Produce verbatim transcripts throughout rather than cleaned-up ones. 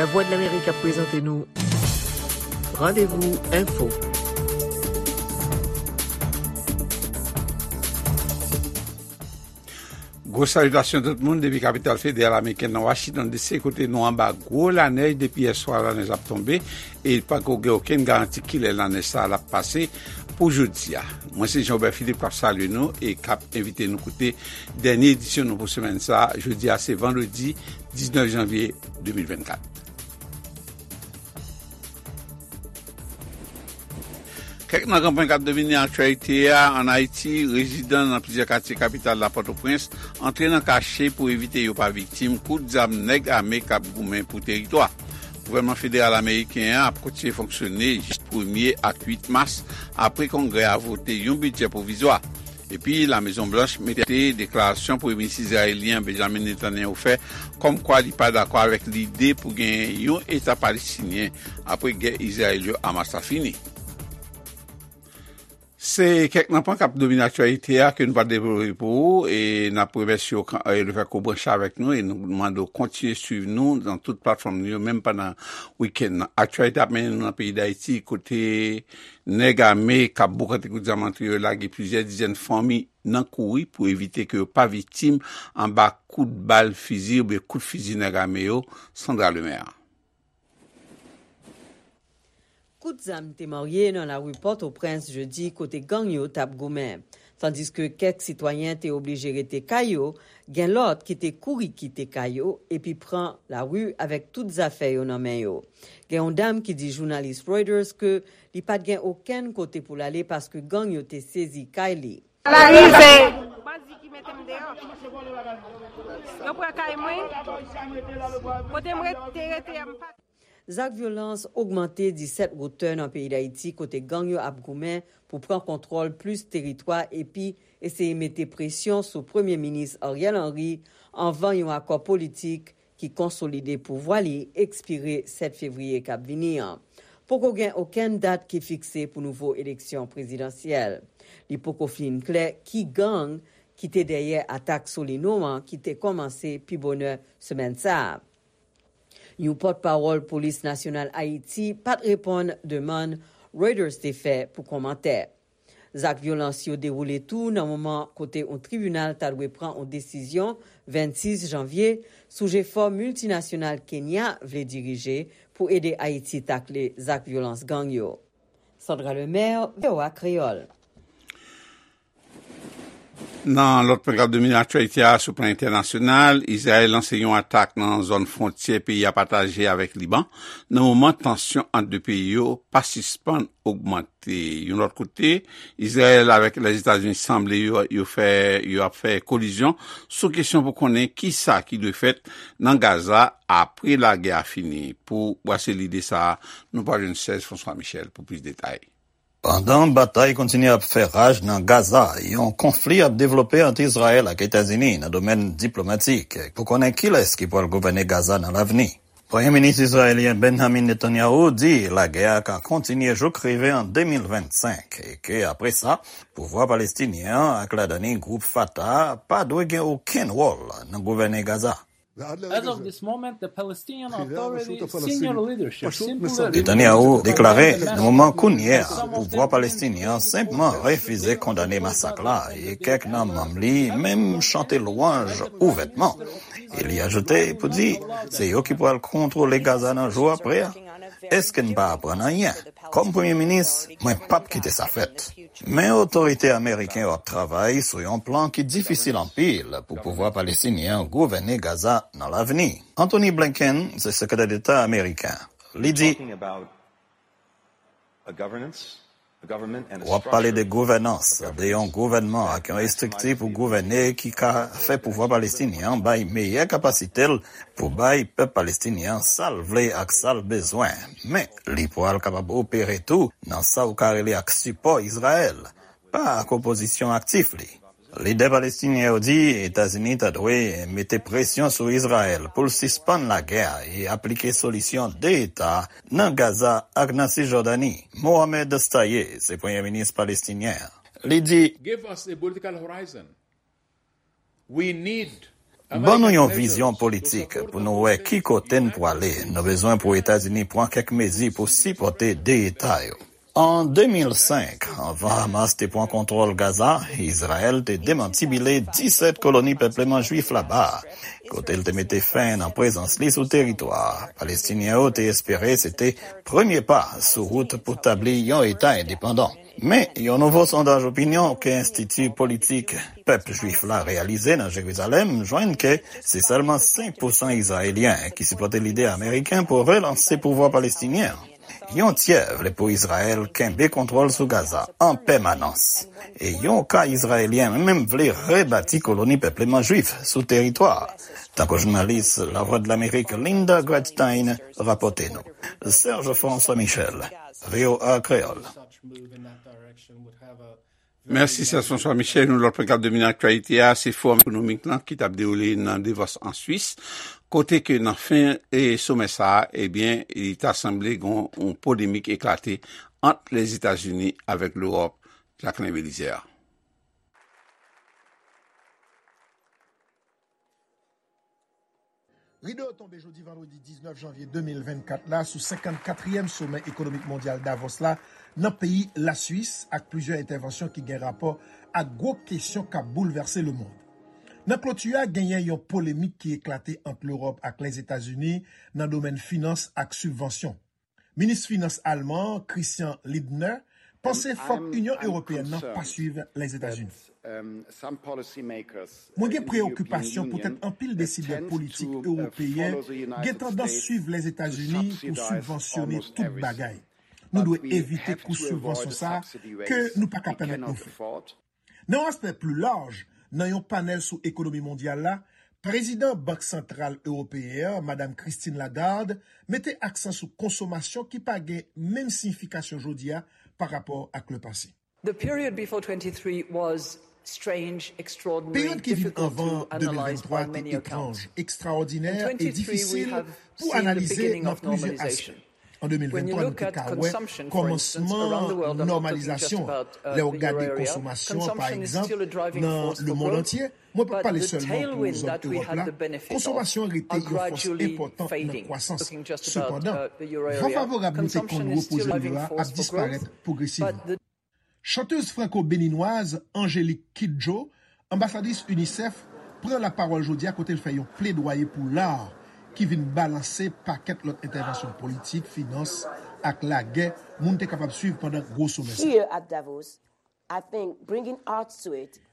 Lavwadlamerik ap prezante nou Randevou Enfo. Gwo salitasyon tout moun depi kapital federal amerikèn nan Washington D C, kote nou anba gwo lanèj depi yèswa. Lanèj ap tonbe e pako gen okenn garanti kilè lanèj sa a ap pase pou jodi a. Mwen se Jean Robert Philippe k ap salye nou e k ap envite nou koute dènye edisyon nou pou semèn sa a. Jodi a se vandredi diznèf janvye de mil vennkat. Kèk nan gran pwen k ap domine aktyalite a. Ann Ayiti, rezidan nan plizyè katye kapital la, Pòtoprens, antre nan kache pou evite yo pa viktim kout zam nèg ame k ap goumen pou teritwa. Gouvènman federal ameriken an ap kontinye fonksyone jis premye ak uit mas, apre Kongrè a vote yon bidjè pwovizwa. Epi, Lamezon Blanch mete deklarasyon Premye Minis izrayelyen Benjamin Netanyahu fè, kòmkwa li pa dakò avèk lide pou gen yon Eta palestinyen apre gè Izrayèl yo Hamas la fini. Se kèk nan pwen k ap domine aktyalite a ke nou pa devlope pou ou, e n ap remèsye w kan, e, lefètke w branche avèk nou, e nou mande w kontinye swiv nou nan tout platfòm nou yo, menm pandan wikenn nan. Aktyalite ap mennen nou nan peyi Dayiti, kote nèg ame k ap boukante kout zam antre yo lage plizyè dizèn fanmi nan kouri pou evite ke yo pa viktim anba kout bal fizi oubyen kout fizi nèg ame yo. Sandra Lemaire. Kout zam te marye nan lari Pòtoprens jedi kote gang yo t ap goumen. Tandiske kèk sitwayen te oblije rete kay yo, gen lòt ki te kouri kite kay yo epi pran lari avèk tout zafè yo nan men yo. Gen yon dam ki di jounalis Reuters ke li pa t gen okenn kote pou l ale paske gang yo te sezi kay li. Bandi ki mete m deyò. Yo pran kay mwen. Kote m ret-, te rete a, m pa Zak vyolans ogmante disèt wotè nan peyi Dayiti, kote gang yo ap goumen pou pran kontwòl plis teritwa epi eseye mete presyon sou Premye Minis Ariel Henry anvan yon akò politik ki konsolide pouvwa li ekspire sèt fevriye k ap vini an. Poko gen okenn dat ki fikse pou nouvo eleksyon prezidansyèl. Li poko fin klè ki gang ki te dèyè atak Solino an ki te kòmanse pi bonè semèn sa a. Yon pòtpawòl Polis Nasyonal Ayiti pa t reponn demann Reuters te fè pou kòmantè. Zak vyolans yo dewoule tou nan moman kote yon tribinal ta dwe pran yon desizyon vennsis janvye sou jefò miltinasyonal Kenya vle dirije pou ede Ayiti takle zak vyolans gang yo. Sandra Lemaire, V O A Kreyòl. Nan lòt pwen k ap domine aktyalite a sou plan entènasyonal, Izrayèl lanse yon atak nan zòn fwontyè peyi a pataje avèk Liban, nan moman tansyon ant de peyi yo pa sispann ogmante. Yon lòt kote, Izrayèl avèk Lèzetazini sanble yo, yo fè, yo ap fè kolizyon sou kesyon pou konnen kisa ki dwe fèt nan Gaza apre lagè a fini. Pou brase lide sa a, nou pral jwenn Serge François Michel pou plis detay. Pandan batay kontinye ap fè raj nan Gaza, yon konfli ap devlope ant Izrayèl ak Etazini nan domèn diplomatik pou konnen kilès ki pral gouvène Gaza nan lavni. Premye Minis izrayelyen Benjamin Netanyahu di lagè a ka kontinye jouk rive an de mil vennsenk e ke apre sa, pouvwa palestinyen an ak ladan li gwoup Fatah pa dwe gen okenn wòl nan gouvène Gaza. As of this moment, the Palestinian Authority senior leadership simply Netanyahu deklare nan moman kounye a, pouvwa palestinyen an senpman refize kondane masak la, e kèk nan manm li menm chante lwanj ouvètman. E li ajoute pou di, se yo ki pral kontwole Gaza nan jou apre a. Èske n pa aprann anyen? Kòm premye minis, mwen p ap kite sa fèt. Men otorite ameriken yo ap travay sou yon plan ki difisil anpil pou pouvwa palestinyen an gouvène Gaza nan lavni. Antony Blinken se sekretè deta ameriken. Li di, w ap pale de gouvènans, de yon gouvènman ak yon estrikti pou gouvène ki ka fè pouvwa palestinyen an bay meyè kapasite l pou bay pèp palestinyen an sa l vle ak sa l bezwen. Men, li pral kapab opere tou nan sa w ka rele ak sipò Izrayèl, pa ak opozisyon aktif li. Lidè palestinyen yo di Etazini ta dwe mete presyon sou Izrayèl pou l sispann lagè a e aplike solisyon de eta nan Gaza ak nan Sijòdani. Mohamed Shtayyeh se premye minis palestinyen an. Li di, Give us a political horizon. We need Ban nou yon vizyon politik pou nou wè ki kote n pwale. Nou bezwen pou Etazini pran kèk mezi pou sipòte de eta yo. An de mil senk, anvan Hamas te pran kontwòl Gaza, Izrayèl te demantibile disèt koloni pèpleman jwif laba a, kote l te mete fen nan prezans li sou teritwa a. Palestinyen yo te espere se te premye pa sou wout pou tabli yon eta endepandan. Men, yon nouvo sondaj opinyon ke Enstiti Politik Pèp Jwif la reyalize nan Jerizalèm jwenn ke se sèlman senk pousan Izrayelyen ki sipòte lide ameriken pou relanse pouvwa palestinyen an. Yon tyè vle pou Izrayèl kenbe kontwòl sou Gaza an pèmanans. E yon ka Izrayelyen menm vle rebati koloni pèpleman jwif sou teritwa a, tankou jounalis Lavwadlamerik Linda Gradstein rapòte nou. Serge François Michel, V O A Kreyòl. Mèsi, Serge François Michel. Yon lòt pwen k ap domine aktyalite a, se Fowòm Ekonomik lan ki t ap dewoule nan Davos an Swis, kote ke nan fen e somè sa a, ebyen, li ta sanble gen yon polemik eklate ant Lèzetazini avèk Lewòp. Jacquelin Belizaire. Rido yo tonbe jodi vandredi diznèf janvye de mil vennkat la sou senkannkatriyèm Somè Ekonomik Mondyal Davos la nan peyi Laswis, ak plizyè entèvansyon ki gen rapò ak gwo kesyon k ap boulvèse lemonn. Nan kloti a, genyen yon polemik ki eklate ant Lewòp ak Lèzetazini nan domèn finans ak sibvansyon. Minis Finans alman an, Christian Lindner, panse fòk Inyon Ewopeyèn nan pa swiv Lèzetazini. Mwen gen preyokipasyon poutèt anpil desidè politik ewopeyen gen tandans swiv Lèzetazini pou sibvansyone tout bagay. Nou dwe evite kous sibvansyon sa a ke nou pa ka pèmèt nou fè. Nan yon aspè pli laj, nan yon panèl sou ekonomi mondyal la, prezidan Bank Santral Ewopeyen an, Madam Christine Lagarde, mete aksan sou konsomasyon ki pa gen menm siyifikasyon jodi a pa rapò ak lepase. Peryòd ki vin anvan de mil venntwa te etranj, ekstraòdinè e difisil pou analize nan plizyè aspè. An de mil venntwa, nou te ka wè kòmansman nòmalizasyon an. Lè w gade konsomasyon an, pa egzanp, nan lemonn antye, mwen p ap pale sèlman pou zòn Ewòp la, konsomasyon an rete yon fòs enpòtan nan kwasans. Sepandan, van favorab nou te konn repoze yo a ap disparèt pwogresivman. Chantèz franko-beninwaz Angélique Kidjo, anbasadris UNICEF, pran lapawòl jodi a kote l fè yon pledwaye pou lar ki vin balanse pakèt lòt entèvansyon politik, finans, ak lagè moun te kapab swiv pandan gwo somè sa.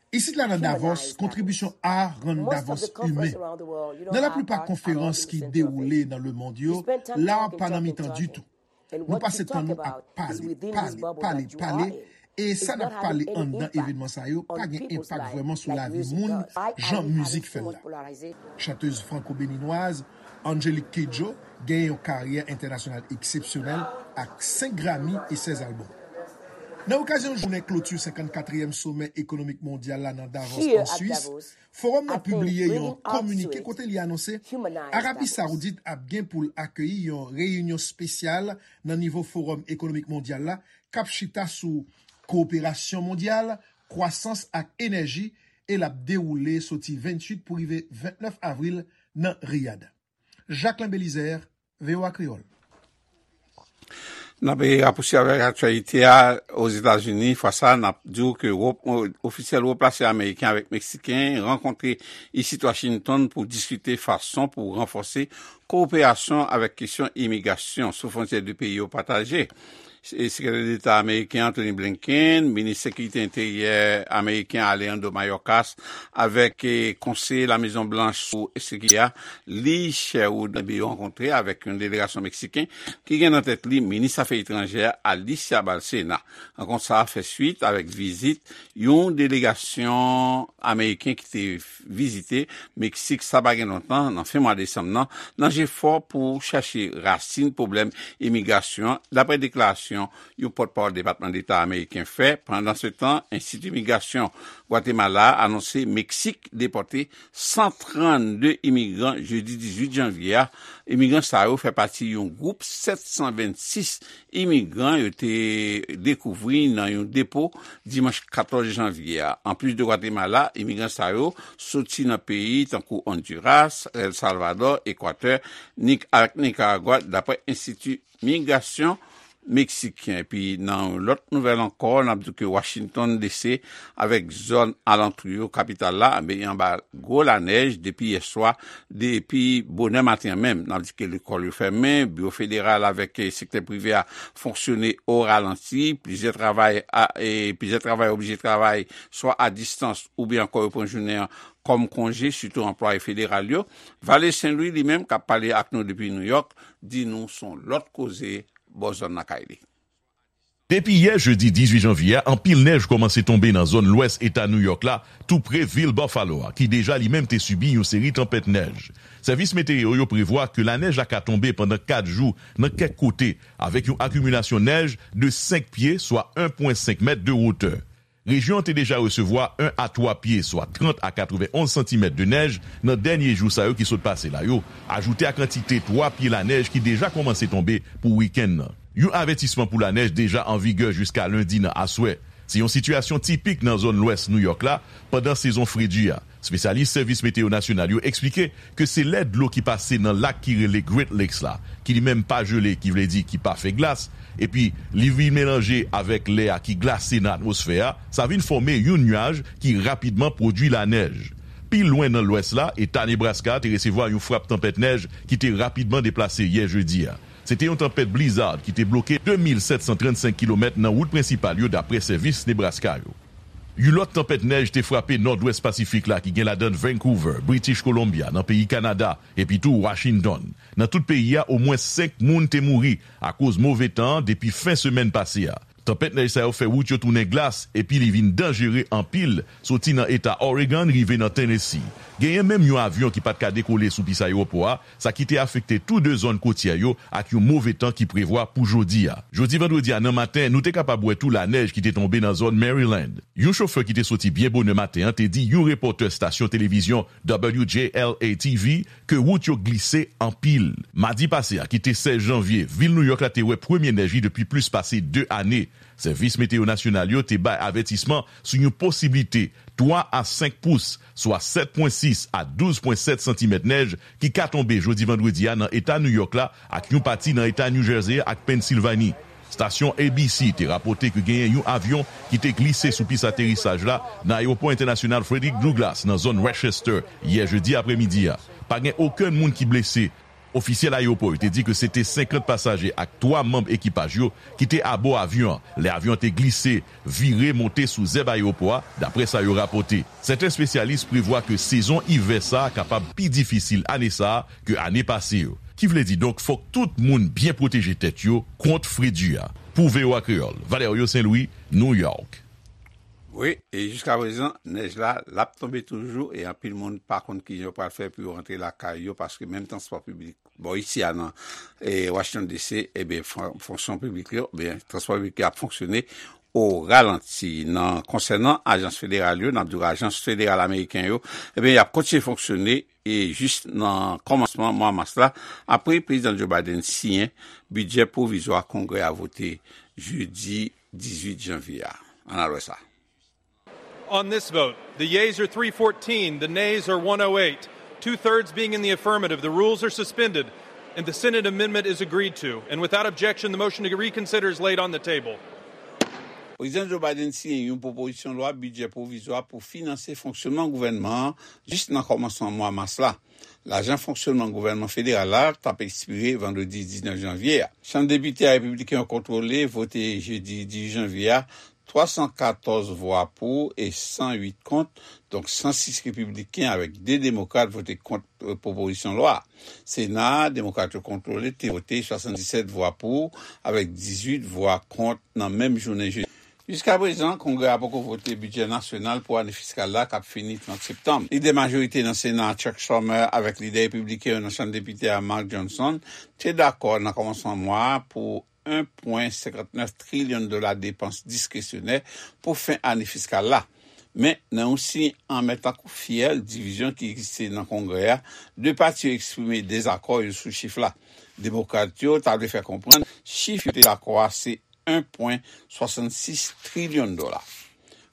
Isit la nan Davos, kontribisyon ar rann Davos imen. Nan laplipa konferans ki dewoule nan lemonn yo, lar pa nan mitan ditou. Nou pase tan nou ap pale, pale, pale, pale, e sa n ap pale anndan evènman sa yo pa gen enpak vrèman sou lavi moun jan mizik fè l la. Chantèz franko-beninwaz Angélique Kidjo genyen yon karyè entènasyonal eksepsyonèl ak senk Grammy e sèz albòm. Nan okazyon jounen kloti senkannkatriyèm Somè Ekonomik Mondyal la nan Davos, an Swis, Fowòm nan pibliye yon kominike kote li anonse Arabi Sawoudit ap gen pou l akeyi yon reyinyon espesyal nan nivo Fowòm Ekonomik Mondyal la k ap chita sou kowoperasyon mondyal, kwasans ak enèji, e l ap dewoule soti venntuit pou rive ventnèf avril nan Riyad. Jacquelin Belizaire, V O A Kreyòl. N ap rapouswiv avèk aktyalite a Ozetazini. Fwa sa a, n ap di w ke wo ofisyèl wo plase ameriken avèk meksiken rankontre isit Washington pou diskite fason pou ranfòse kowoperasyon avèk kesyon imigrasyon sou fwontyè de peyi yo pataje. Sekretè Deta ameriken Anthony Blinken, minis sekirite enteryè ameriken Alejandro Mayorkas avèk konseye Lamezon Blanch sou sekirite a, Lee Sherwood, yo rankontre avèk yon delegasyon meksiken ki gen nan tèt li minis afè etranjè Alicia Bárcena. Rankont sa a fè swit avèk vizit yon delegasyon ameriken ki te vizite Meksik sa pa gen lontan nan fen mwa desanm nan, nan jefò pou chache rasin pwoblèm imigrasyon an, dapre deklarasyon yon pòtpawòl Depatman Deta ameriken fè. Pandansetan, Enstiti Migrasyon Gwatemala anonse Meksik depòte san trannde imigran jedi dizuit janvye a. Imigran sa yo fè pati yon gwoup sèt san vennsis imigran yo te dekouvri nan yon depo dimanch katòz janvye a. Anplis de Gwatemala, imigran sa yo soti nan peyi tankou Honduras, El Salvador, Ekwatè, Nik-, ak Nikaragwa, dapre Enstiti Migrasyon Meksiken. Epi nan yon lòt nouvèl ankò, n ap di ke Washington D C avèk zòn alantou yo, kapital la, ben, anba gwo lanèj depi yèswa, depi bonè maten an menm. N ap di ke lekòl yo fèmen, biwo federal avèk, eh, sektè prive a fonksyone o ralanti, plizyè travay a, e plizyè travay oblije travay swa a distans oubyen ankò yo pran jounen an kòm konje, sitou anplwaye federal yo. Vale Sen Lwi li menm, k ap pale ak nou depi New York, di nou se yon lòt koze bò zòn lakay li. Depi yè jedi dizuit janvye a, anpil nèj kòmanse tonbe nan zòn lwès eta New York la, tou pre vil Buffalo a, ki deja li menm te sibi yon seri tanpèt nèj. Sèvis meteyo yo prevwa ke lanèj la ka tonbe pandan kat jou nan kèk kote, avèk yon akimilasyon nèj de senk pye, swa en pwen senk mèt de wotè. Rejyon an te deja resevwa en a twa pye, swa trant a katrevenonz santimèt de nèj nan dènye jou sa yo ki sot pase la yo, ajoute a kantite twa pye lanèj ki deja kòmanse tonbe pou wikenn nan. Yon avètisman pou lanèj deja an vigè jiska lendi nan aswè. Se yon sitiyasyon tipik nan zòn lwès New York la pandan sezon fredi a. Espesyalis Sèvis Meteyo Nasyonal yo eksplike ke se lè dlo ki pase nan lak ki rele Great Lakes la, ki li menm pa jele, ki vle di ki pa fè glas, epi li vin melanje avèk lè a ki glase nan atmosfè a, sa vin fòme yon nyaj ki rapidman pwodui lanèj. Pi lwen nan lwès la, eta Nebraska te resevwa yon frap tanpèt nèj ki te rapidman deplase yè jedi a. Se te yon tanpèt blizzard ki te bloke de mil sèt san trannsenk kilomèt nan wout prensipal yo, dapre sèvis Nebraska yo. Yon lòt tanpèt nèj te frape nòdwès Pasifik la, ki gen ladan Vancouver, British Columbia, nan peyi Kanada, epi tou Washington. Nan tout peyi a, omwen senk moun te mouri akoz move tan an depi fen semèn pase a. Tanpèt nèj sa yo fè wout yo tounen glas, epi li vin danjere anpil, soti nan eta Oregon rive nan Tennessee. Genyen menm yon avyon ki pa t ka dekole sou pis ayewopò a, sa ki te afekte tou de zòn kotyè yo ak yon move tan ki prevwa pou jodi a. Jodi vandredi a nan maten, nou te kapab wè tou lanèj ki te tonbe nan zòn Maryland. Yon chofè ki te soti byen bonè maten an te di yon repòtè stasyon televizyon W J L A T V ke wout yo glise anpil. Madi pase a, ki te sèz janvye, vil New York la te wè premye nèj li depi plis pase de ane. Sèvis meteyo nasyonal yo te bay avètisman sou yon posiblite twa a senk pous, swa sèt pwen sis a douz pwen sèt santimèt nèj ki ka tonbe jodi vandredi a nan eta New York la ak yon pati nan eta New Jersey ak Pennsilvani. Stasyon A B C te rapòte ke genyen yon avyon ki te glise sou pis aterisaj la nan Ayewopò Entènasyonal Frederick Douglass nan zòn Westchester yè jedi apremidi a. Pa gen okenn moun ki blese. Ofisyèl ayewopò yo te di ke se te senkant pasaje ak twa manm ekipaj yo ki te abò avyon an lè avyon an te glise, vire, monte sou zèb ayewopò a, dapre sa yo rapòte. Sèten espesyalis prevwa ke sezon ivè sa a kapab pi difisil ane sa a ke ane pase yo. Ki vle di donk, fòk tout moun byen pwoteje tèt yo kont fredi a. Pou V O A Kreyòl, Valerio Saint Louis, New York. Wi, e jiskaprezan, nèj la, l ap tonbe toujou, e anpil moun pa konn kijan yo pral fè pou yo rantre lakay yo, paske menm transpò piblik bò isi a nan, e, Washington D C, ebyen, fon-, fonksyon piblik yo, ebyen, transpò piblik yo ap fonksyone o ralanti. Nan, konsènan ajans federal yo, n ap di w ajans federal ameriken yo, ebyen, y ap kontinye fonksyone, e jis nan kòmansman mwa mas la, apre Prezidan Joe Biden siyen bidjè pwovizwa Kongrè a vote jedi dizuit janvye a. Ann al wè sa. On this vote, the yeas are three fourteen, the nays are one oh eight. Two-thirds being in the affirmative, the rules are suspended and the Senate amendment is agreed to. And without objection, the motion to reconsider is laid on the table. Prezidan Joe Biden siyen yon pwopozisyon lwa bidjè pwovizwa pou finanse fonksyonman gouvènman an jis nan kòmansman mwa mas la. Lajan fonksyonman gouvènman federal la t ap ekspire vandredi diznèf janvye a. Chanm depite a repibliken yo kontwole vote jedi dizuit janvye a twa san katòz vwa pou e san uit kont, donk san sis repibliken avèk de demokrat vote kont, eh, pwopozisyon lwa a. Sena a, demokrat yo kontwole, te vote swasanndisèt vwa pou avèk dizuit vwa kont nan menm jounen jedi. Jiskaprezan, Kongrè a poko vote bidjè nasyonal pou ane fiskal la k ap fini trant septanm. Lidè majorite nan Sena a, Chuck Schumer, avèk lidè repibliken yo nan Chanm Depite a, Mike Johnson, te dakò nan kòmansman mwa a pou en pwen senkantnèf trilyon dola depans diskresyonè pou fen ane fiskal la. Men, nan yon siy anmè tankou fyèl, divizyon ki egziste nan Kongrè a, de pati yo eksprime dezakò yo sou chif la. Demokrat yo ta vle fè konprann chif yo te dakò a se en pwen swasannsis trilyon dola.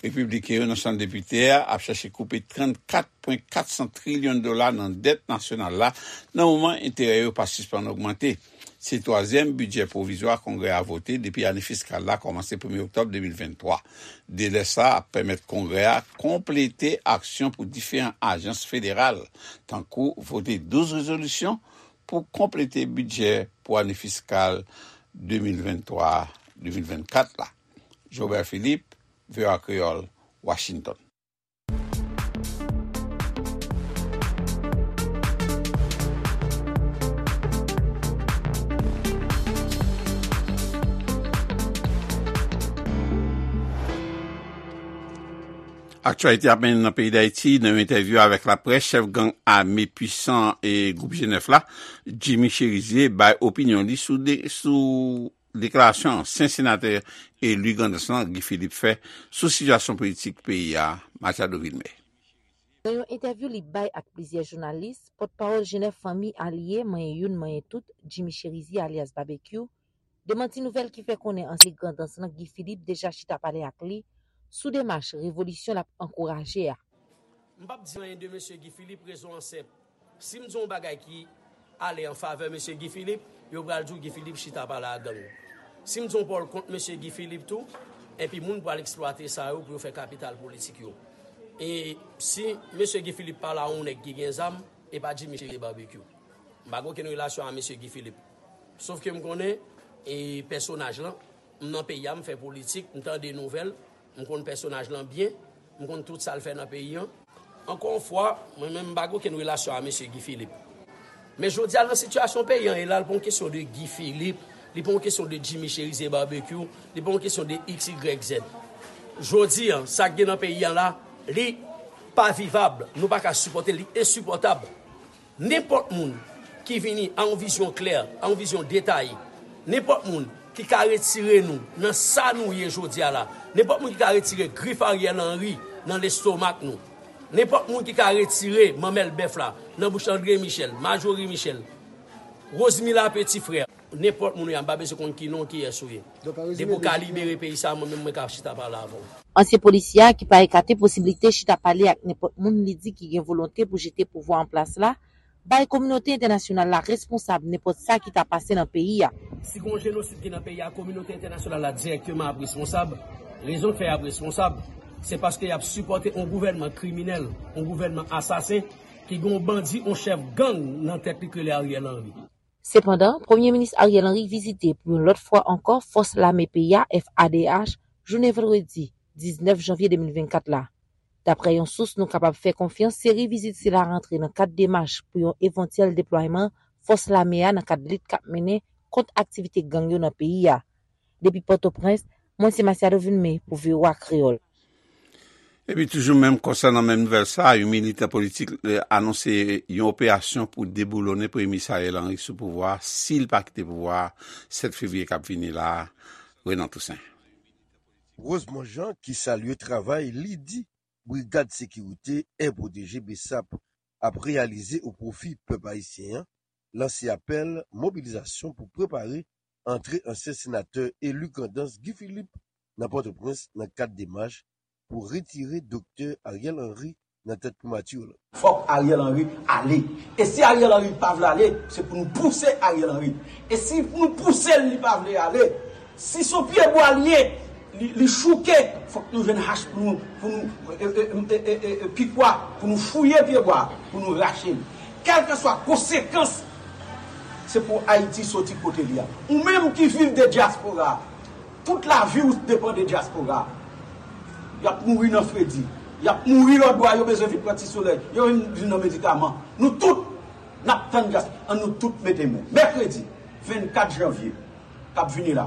Repibliken yo nan Chanm Depite a ap chache koupe trannkat pwen katsan trilyon dola nan dèt nasyonal la, nan moman enterè yo pa sispann ogmante. Se twazyèm bidjè pwovizwa Kongrè a vote depi ane fiskal la kòmanse premye oktòb de mil venntwa. Delè sa a ap pèmèt Kongrè a konplete aksyon pou diferan ajans federal, tankou vote douz rezolisyon pou konplete bidjè pou ane fiskal de mil venntwa de mil vennkat la. Jobert Philippe, V O A Kreyòl, Washington. Aktyalite ap mennen nan peyi Dayiti. Nan yon entèvyou avèk laprès, chèf gang ame pwisan e gwoup G nèf la, Jimmy Chérizier, bay opinyon li sou de, sou deklarasyon ansyen senatè eli Grandans lan, Guy Philippe, fè sou sitiyasyon politik peyi a. Machado Vilmé. Nan yon entèvyou li bay ak plizyè jounalis, pòtpawòl G nèf Fanmi Alye, Manyen Youn, Manyen Tout, Jimmy Chérizier alyas Babekyou, demanti nouvèl ki fè konnen ansyen Grandans lan, Guy Philippe, deja chita pale ak li sou demach revolisyon l ap ankouraje a. M p ap di anyen de mesye Guy Philippe, rezon an senp. Si m di yon bagay ki ale an favè mesye Guy Philippe, yo pral di w Guy Philippe chita pale ak gang. Si m di yon pawòl kont mesye Guy Philippe tou, enpi moun pral eksplwate sa yo pou yo fè kapital politik yo. E si mesye Guy Philippe pale a yon nèg ki gen zam, e pa Jimmy Chérizier Barbecue. M pa gen okenn relasyon a mesye Guy Philippe. Sof ke m konnen, e pèsonaj lan, m nan peyi a, m fè politik, m tande nouvèl, m konn pèsonaj lan byen, m konn tout sa l fè nan peyi an. Ankò yon fwa, mwen menm m pa gen okenn relasyon a mesye Guy Philippe. Men jodi a, nan sitiyasyon peyi an ye la, li pa yon kesyon de Guy Philippe, li pa yon kesyon de Jimmy Chérizier Barbecue, li pa yon kesyon de X Y Z. Jodi a, sa k gen nan peyi an la, li pa vivab, nou pa ka sipòte l, li ensipòtab. Nenpòt moun ki vini a yon vizyon klè, a yon vizyon detaye, nenpòt moun ki ka retire nou nan sa nou ye jodi a la, nenpòt moun ki ka retire grif Ariel Henry nan lestomak nou, nenpòt moun ki ka retire manmèl bèf la nan bouch André Michel, Majorie Michel, Rosemila Petit Frère, nenpòt moun ou ye a, m pa bezwen konn ki non, kiyès ou ye. Depi w ka libere peyi sa, mwen menm mwen ka chita pale avè w. Ansyen polisye a, ki pa ekate posiblite chita pale ak nenpòt moun li di ki gen volonte pou jete pouvwa an plas la, bay kominote entènasyonal la responsab nenpòt sa ki ta pase nan peyi a. Si gen yon jenosid ki nan peyi a, kominote entènasyonal la dirèkteman ap responsab. Rezon k fè y ap responsab, se paske y ap sipòte yon gouvènman kriminèl, yon gouvènman asasen, ki gen yon bandi, yon chèf gang nan tèt li k rele Ariel Henry. Sepandan, Premye Minis Ariel Henry vizite pou yon lòt fwa ankò Fòs Lame peyi a, F A D H, jounen vandredi diznèf janvye de mil vennkat la. Daprè yon sous nou kapab fè konfyans, seri vizit sila rantre nan kad demach pou yon evantyèl deplwayman fòs lame a nan kad lit k ap mennen kont aktivite gang yo nan peyi a. Depi Pòtoprens, mwen se Masiado Vilmé pou V O A Kreyòl. Epi toujou menm konsènan menm nouvèl sa a, yon militan politik, eh, anonse yon operasyon pou deboulonnen Premye Minis Ariel Henry sou pouvwa a, si l pa kite pouvwa a sèt fevriye k ap vini la a. Renan Toussaint. Rosemond Jean, ki salye travay li di Brigad Sekirite Air Protégé, BSAP, ap reyalize o pwofi pèp ayisyen an, lanse apèl mobilizasyon pou prepare antre ansyen senatè eli Grandans Guy Philippe nan Pòtoprens nan kad demach pou retire Doktè Ariel Henry nan tèt primati lan. Fòk Ariel Henry ale. E si Ariel Henry pa vle ale, se pou nou pouse Ariel Henry. E si nou pouse l, li pa vle ale, si se yon pyebwa li ye, li, li chouke, fòk nou jwenn hach pou nou, pou nou, e, e, e, e, e, e, pikwa, pou nou fouye pyebwa, pou nou rache l. Kèlkeswa konsekans, se pou Ayiti soti kote li a. Ou menm ki viv de dyaspora, tout lavi w depann de dyaspora. Y ap mouri nan fredi. Y ap mouri lòtbò a, yo bezwen vin pran ti solèy. Yo vin, vin nan medikaman. Nou tout, n ap tann dyaspora. Ann nou tout mete men. Mèkredi vennkat janvye k ap vini la,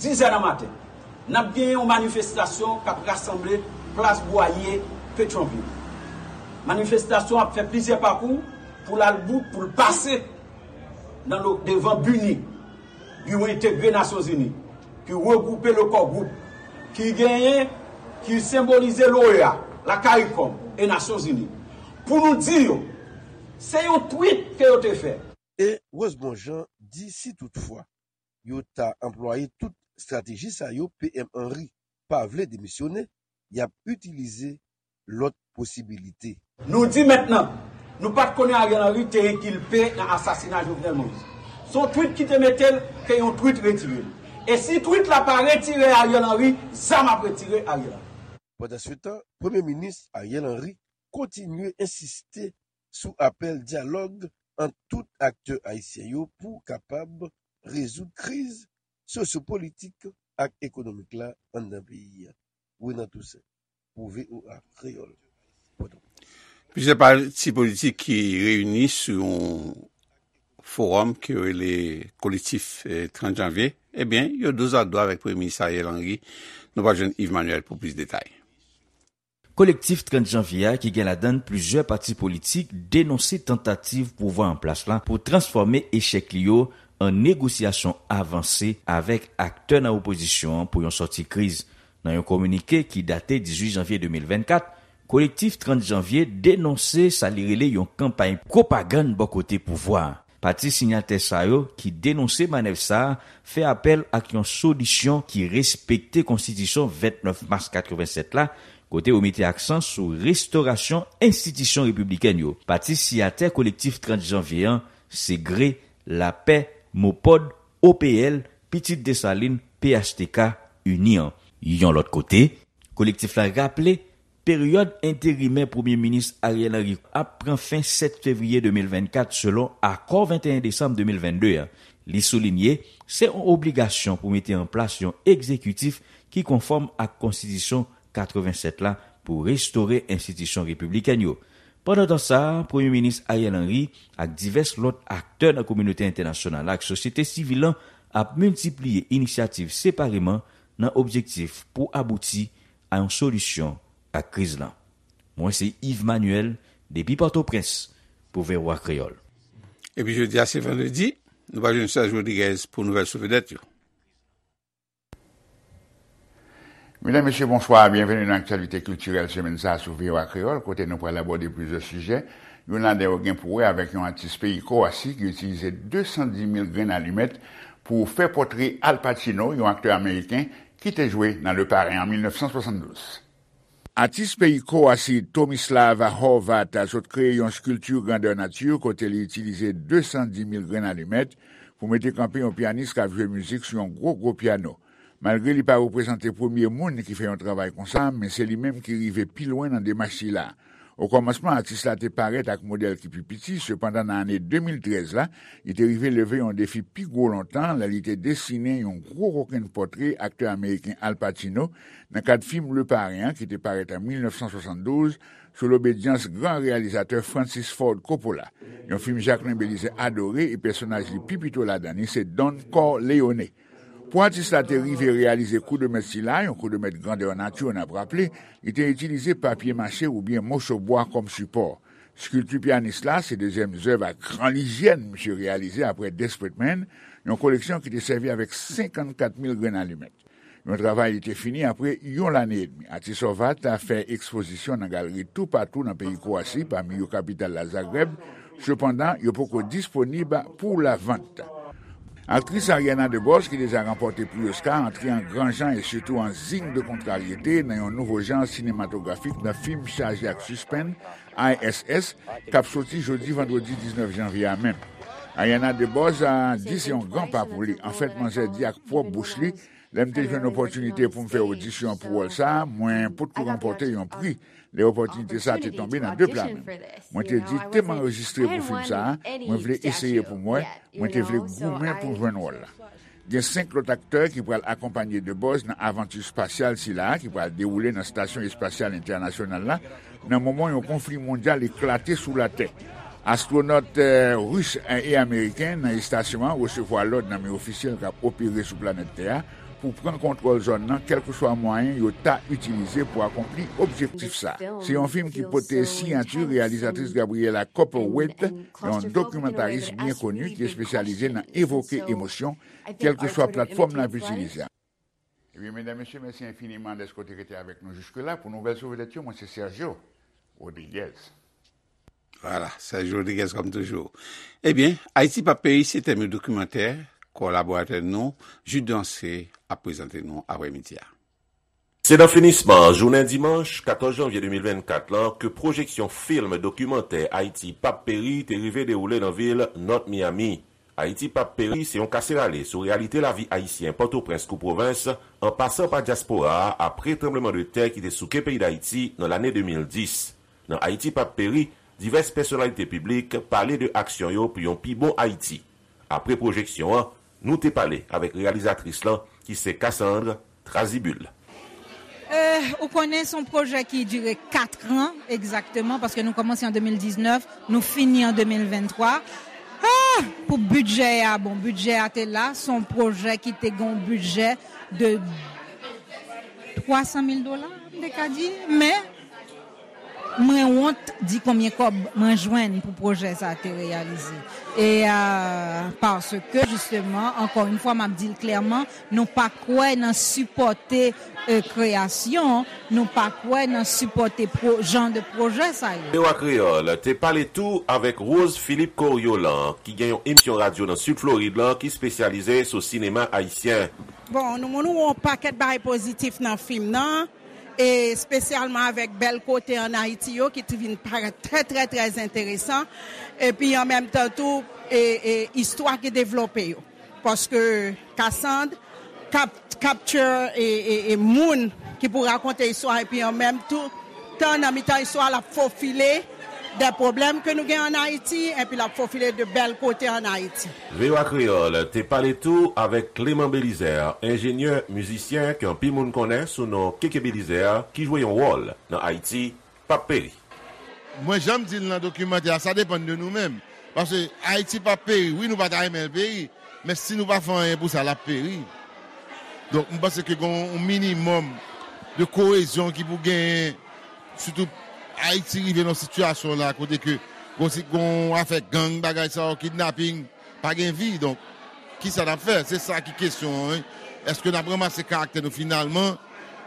dizè nan maten, n ap genyen yon manifestasyon k ap rasanble plas Bwaye, Petyonvil. Manifestasyon ap fè plizyè pakou pou l al bout, pou l pase nan lo, devan Bini. Ki entegre Nasyonzini, ki regwoupe le Core Group, ki genyen, ki senbolize l'OEA, la CARICOM e Nasyonzini, pou nou di yo, se yon tweet ke yo te fè. E Rosemond Jean di si toutfwa yo ta anplwaye tout estrateji sa yo, P M Henry pa vle demisyone, y ap itilize lòt posibilite. Nou di mentnan, nou pa t konnen Ariel Henry te enkilpe nan asasina Jovenel Moïse. Se yon tweet ki te mete l ke yon tweet retire l. E si tweet la pa retire Ariel Henry, zam ap retire Ariel Henry. Pandansetan, Premye Minis Ariel Henry kontinye ensiste sou apèl dyalòg ant tout aktè ayisyen yo pou kapab rezoud kriz sosyopolitik ak ekonomik la anndan peyi a. Renan Toussaint, pou V O A Kreyòl, Pòtoprens. Plizyè pati politik ki reyini sou yon fowòm ki rele Kolektif, eh, trant Janvye, ebyen, yo dozadwa avèk Premye Minis Ariel Henry. Nou pral jwenn Yves Manuel pou plis detay. Kolektif trant Janvye a, ki gen ladan l plizyè pati politik, denonse tantativ pouvwa an plas la pou transfòme echèk li yo an negosyasyon avanse avèk aktè nan opozisyon an pou yon sòti kriz. Nan yon kominike ki date dizuit janvye de mil vennkat, Kolektif trant Janvye denonse sa li rele yon kanpay pwopagann bò kote pouvwa a. Pati siyatè sa yo ki denonse manèv sa a fè apèl ak yon solisyon ki respekte Konstitisyon vennèf mas katrevensèt la, kote yo mete aksan sou restorasyon enstitisyon repiblikèn yo. Pati siyatè Kolektif trant Janvye an, se GRE, Lapè, MOPOD, O P L, Pitit Desalin, P H T K, Ini an. Yon lòt kote, kolektif la raple peryòd enterimè Premye Minis Ariel Henry ap pran fen sèt fevriye de mil vennkat, selon akò venteyen desanm de mil vennde a. Li soulinye, se yon obligasyon pou mete an plas yon egzekitif ki konfòm ak Konstitisyon katrevensèt la pou restore enstitisyon repiblikèn yo. Pandan tan sa a, Premye Minis Ariel Henry ak divès lòt aktè nan kominote entènasyonal la ak sosyete sivil lan ap miltipliye inisyativ separeman nan objektif pou abouti a yon solisyon ak kriz lan. Mwen se Yves Manuel, depi Pòtoprens, pou V O A Kreyòl. Epi jodi a se vandredi, nou pral jwenn Serge Rodriguez pou nouvèl sou vedèt yo. Medam, mesye, bonswa, byenveni nan aktyalite kiltirèl semèn sa a sou V O A Kreyòl, kote nou pral abòde plizyè sijè. Youn ladan yo gen pou wè avèk yon atis peyi Kwowasi ki itilize de san di mil grenn alimèt pou fè pòtre Al Pacino, yon aktè ameriken ki te jwe nan Le Parrain an mil nèf san swasanndouz. Atis peyi Kwowasi Tomislava Horvat sot kreye yon skilti grandè nati kote li itilize de san di mil grenn alimèt pou mete kanpe yon pyanis k ap jwe mizik sou yon gwo, gwo pyano. Malgre li pa reprezante premye moun ki fè yon travay konsa, men se li menm ki rive pi lwen nan demach sila. Okòmansman, atis la te parèt ak modèl ki pi piti, sepandan, nan ane de mil trèz la, li te rive leve yon defi pi gwo lontan lè li te desinen yon gwo kokenn pòtre aktè ameriken Al Pacino nan kad fim Le Parrain an ki te parèt an mil nèf san swasanndouz sou lobedyans gran reyalizatè Francis Ford Coppola. Yon fim Jacqueline Belizaire adore e pèsonaj li pi pito ladan li se Don Corleone. Pou atis la te rive reyalize kou de mèt sila, yon kou de mèt grandè nati, n ap raple, li te itilize papye mache oubyen moso bwa kòm sipò. Skilti pyanis la se dezyèm zèv a gran lizyèn misye reyalize apre Desperate Man, yon koleksyon ki te sèvi avèk senkannkat mil grenn alimèt. Yon travay li te fini apre yon lane edmi. Atis Horvat fè ekspozisyon nan galeri toupatou nan peyi Kwowasi, pami yo kapital la Zagreb, sepandan, yo poko disponib pou lavant. Aktris Ariana DeBose, ki deja ranpòte pri Oscar, antre an gran jan e sitou an zing de kontraryete nan yon nouvo jan sinematografik nan fim chaje ak sispenn, I S S, k ap soti jodi vandredi diznèf janvye a menm. Ariana DeBose a di se yon gran pa pou li. Anfèt, manzè di ak pwòp bouch li, lè m te jwenn opòtinite pou m fè odisyon pou wòl sa a, mwen potko ranpòte yon pri lè opòtinite sa a te tonbe nan de pla men m. Mwen te di, te m anrejistre pou fim sa a, mwen vle eseye pou m wè, mwen te vle goumen pou m jwenn wòl la. Gen senk lòt aktè ki pral akonpanye DeBose nan avanti espasyal sila a ki pral dewoule nan Estasyon Espasyal Entènasyonal la, nan moman yon konfli mondyal eklate sou Latè. Astwonòt, eh, ris e ameriken nan estasyon an resevwa lòd nan men ofisyèl k ap opere sou planèt Tè a Pou pran kontwòl zòn nan, kèlkeswa mwayen yo ta itilize pou akonpli objektif sa. Se yon fim ki pote siyati reyalizatris Gabriella Copperthwaite, yon dokimantaris byen koni ki espesyalize nan evoke emosyon, kèlkeswa platfòm n ap itilize. Ebyen, medam, mesye, mèsi enfiniman dèske w te rete avèk nou jiske la. Pou nouvèl sou vedèt yo, mwen se Sergio Rodriguez. Vwala, Sergio Rodriguez kòm toujou. Ebyen, Ayiti p ap peri se tèm yon dokimantè kolaboratè nou, Jude Dancé, ap prezante nou aprèmidi a. Se nan finisman jounen dimanch katòz janvye de mil vennkat lan ke pwojeksyon fim dokimantè Ayiti p ap peri te rive dewoule nan vil North Miami. Ayiti p ap peri se yon kase rale sou reyalite lavi ayisyen Pòtoprens kou pwovens, an pasan pa dyaspora a apre tranblemanntè ki te souke peyi Dayiti nan lane de mil dis. Nan Ayiti p ap peri, divès pèsonalite piblik pale de aksyon yo pou yon pi bon Ayiti. Apre pwojeksyon an, nou te pale avèk reyalizatris lan, ki se Cassandre Trazibul. Eh, ou konnen se yon pwojè ki dire kat an egzakteman, paske nou kòmanse an de mil diznèf, nou fini an de mil venntwa. Ah, pou bidjè a, bon, bidjè a te la, se yon pwojè ki te gen yon bidjè de twa san mil dola, m te ka di, men mwen wont di konbyen kòb mwen jwenn pou pwojè sa a te reyalize. E, euh, paske, jisteman, ankò yon fwa, m ap di l klèman, nou pa kwè nan sipòte, euh, kreyasyon, nou pa kwè nan sipòte pwo-, jan de pwojè sa yo. V O A Kreyòl te pale tou avèk Rose Philippe Coriolan, ki gen yon emisyon radyo nan Sid Florid lan ki espesyalize sou sinema ayisyen. Bon, nou moun wè yon pakèt bagay pozitif nan fim nan, e espesyalman avèk bèl kote ann Ayiti yo ki t vin parèt trè, trè, trè enteresan, epi an menm tan tou, e, e istwa ki devlope yo. Paske Cassandre kap-, capture e, e, e moun ki pou rakonte istwa, epi an menm tou, tan nan mitan istwa, l ap fofile de pwoblèm ke nou gen ann Ayiti, epi l ap fofile de bèl kote ann Ayiti. V O A Kreyòl te pale tou avèk Clément Belizaire, enjenyè, mizisyen ke anpil moun konnen sou non Keke Belizaire, ki jwe yon wòl nan Ayiti p ap peri. Mwen, jan m di l nan dokimantè a, sa depann de nou menm. Paske Ayiti p ap peri. Wi, nou pa ta renmen l peri, men si nou pa fè anyen pou sa, l ap peri. Donk, m panse ke gen yon minimòm de koyezyon ki pou genyen, sitou Ayiti rive nan sitiyasyon la kote ke gon, gon afè gang, bagay sa yo, kidnaping, pa gen vi. Donk, kisa n ap fè? Se sa ki kesyon an, wi. Èske n ap ranmase karaktè nou finalman?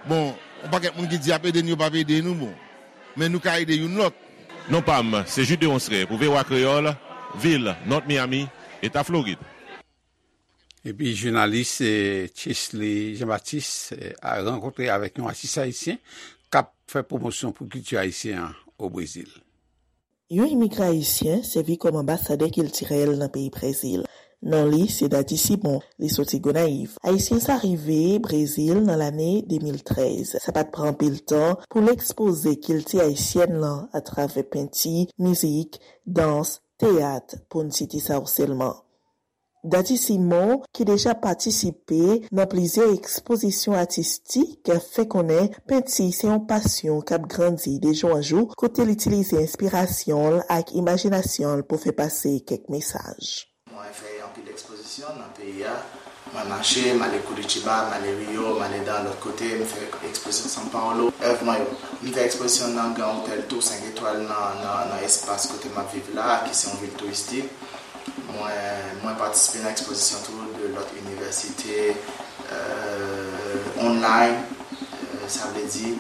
Bon, yon pakèt moun ki di y ap ede n, yo p ap ede nou, bon. Men nou ka ede youn lòt. Non pa m, se Jude Deronceray pou V O A Kreyòl, vil North Miami, Eta Florid. Epi jounalis eh, Chesley Jean Baptiste eh, a rankontre avèk yon atis ayisyen k ap fè pwomosyon pou kilti ayisyen an o Brezil. Yon imigran ayisyen sèvi kòm anbasadè kiltirèl nan peyi Brezil. Non li se Daddy Simon, li soti Gonayiv. Ayisyen sa rive Brezil nan lane de mil trèz. Sa pa t pran anpil tan pou l ekspoze kilti ayisyèn lan atravè penti, mizik, dans, teyat, pou n site sa yo sèlman. Daddy Simon, ki deja patisipe nan plizyè ekspozisyon atistik, fè konnen penti se yon pasyon k ap grandi de jou an jou, kote l itilize enspirasyon l ak imajinasyon l pou fè pase kèk mesaj. Mwen fè anpil ekspozisyon nan peyi a. Mwen mache, m ale Curitiba, m ale Rio, m ale nan lòt kote, m fè ekspozisyon São Paulo. Èv mwen yo, m fè ekspozisyon nan Grand Hotel tou senk etwal nan, nan, nan espas kote m ap viv la, ki se yon vil touristik. Mwen, mwen patisipe nan ekspozisyon tou de lòt inivèsite, euh, online, euh, sa vle di,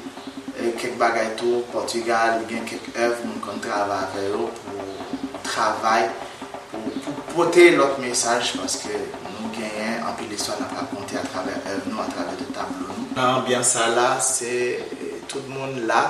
e kèk bagay tou, Pòtigal, gen kèk èv moun konn travay avè yo pou travay, pou, pou pote lòt mesaj, paske nou genyen anpil istwa n ap rakonte atravè èv nou, atravè de tablo nou. Nan anbyans sa la, se, e, tout moun la,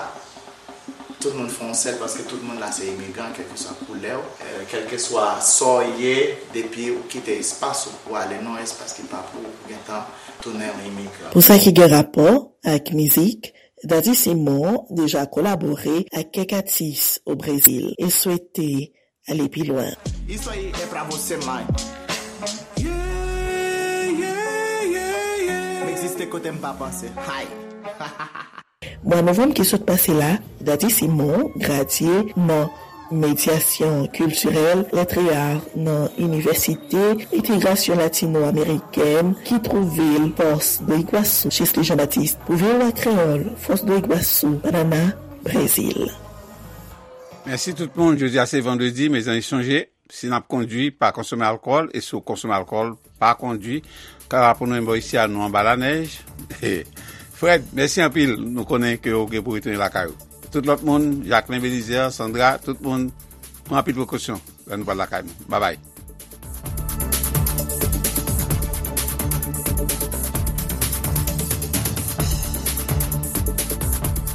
tout moun fè yon sèl, paske tout moun la se imigran, kèlkeswa koulè w, e, kèlkeswa sa w ye, depi ou kite espas ou pou ale nan yon espas ki pa pou ou, ou gentan tounen yon imigran. Pou sa ki gen rapò ak mizik, Daddy Simon deja kolabore ak kèk atis o Brezil e swete ale pi lwen. Isso aí é pra você, mãe. Yeah, yeah, yeah, yeah. M egziste kote m pa panse. Hay. Mwa novanm ki sot pase la, Daddy Simon gradye nan Medyasyon kiltirèl, Lettres et Arts nan Inivèsite Entegrasyon Latino-Amerikèn ki twouve l Foz do Iguaçu, Jesle Jean-Baptiste, pou V O A Kreyòl, Foz do Iguaçu, Paraná, Brezil. Mèsi tout moun. Jodi a se vandredi, mezanmi sonje, si n ap kondwi, pa konsome alkòl, e si w konsome alkòl, pa kondwi. Kara pou nou enbo isi a nou anba lanèj. Fred, mèsi anpil. Nou konnen ke w gen pou retounen lakay ou. Tout lòt moun, Jacquelin Belizaire, Sandra, tout moun, pran anpil prekosyon lè nou pral lakay nou. Babay.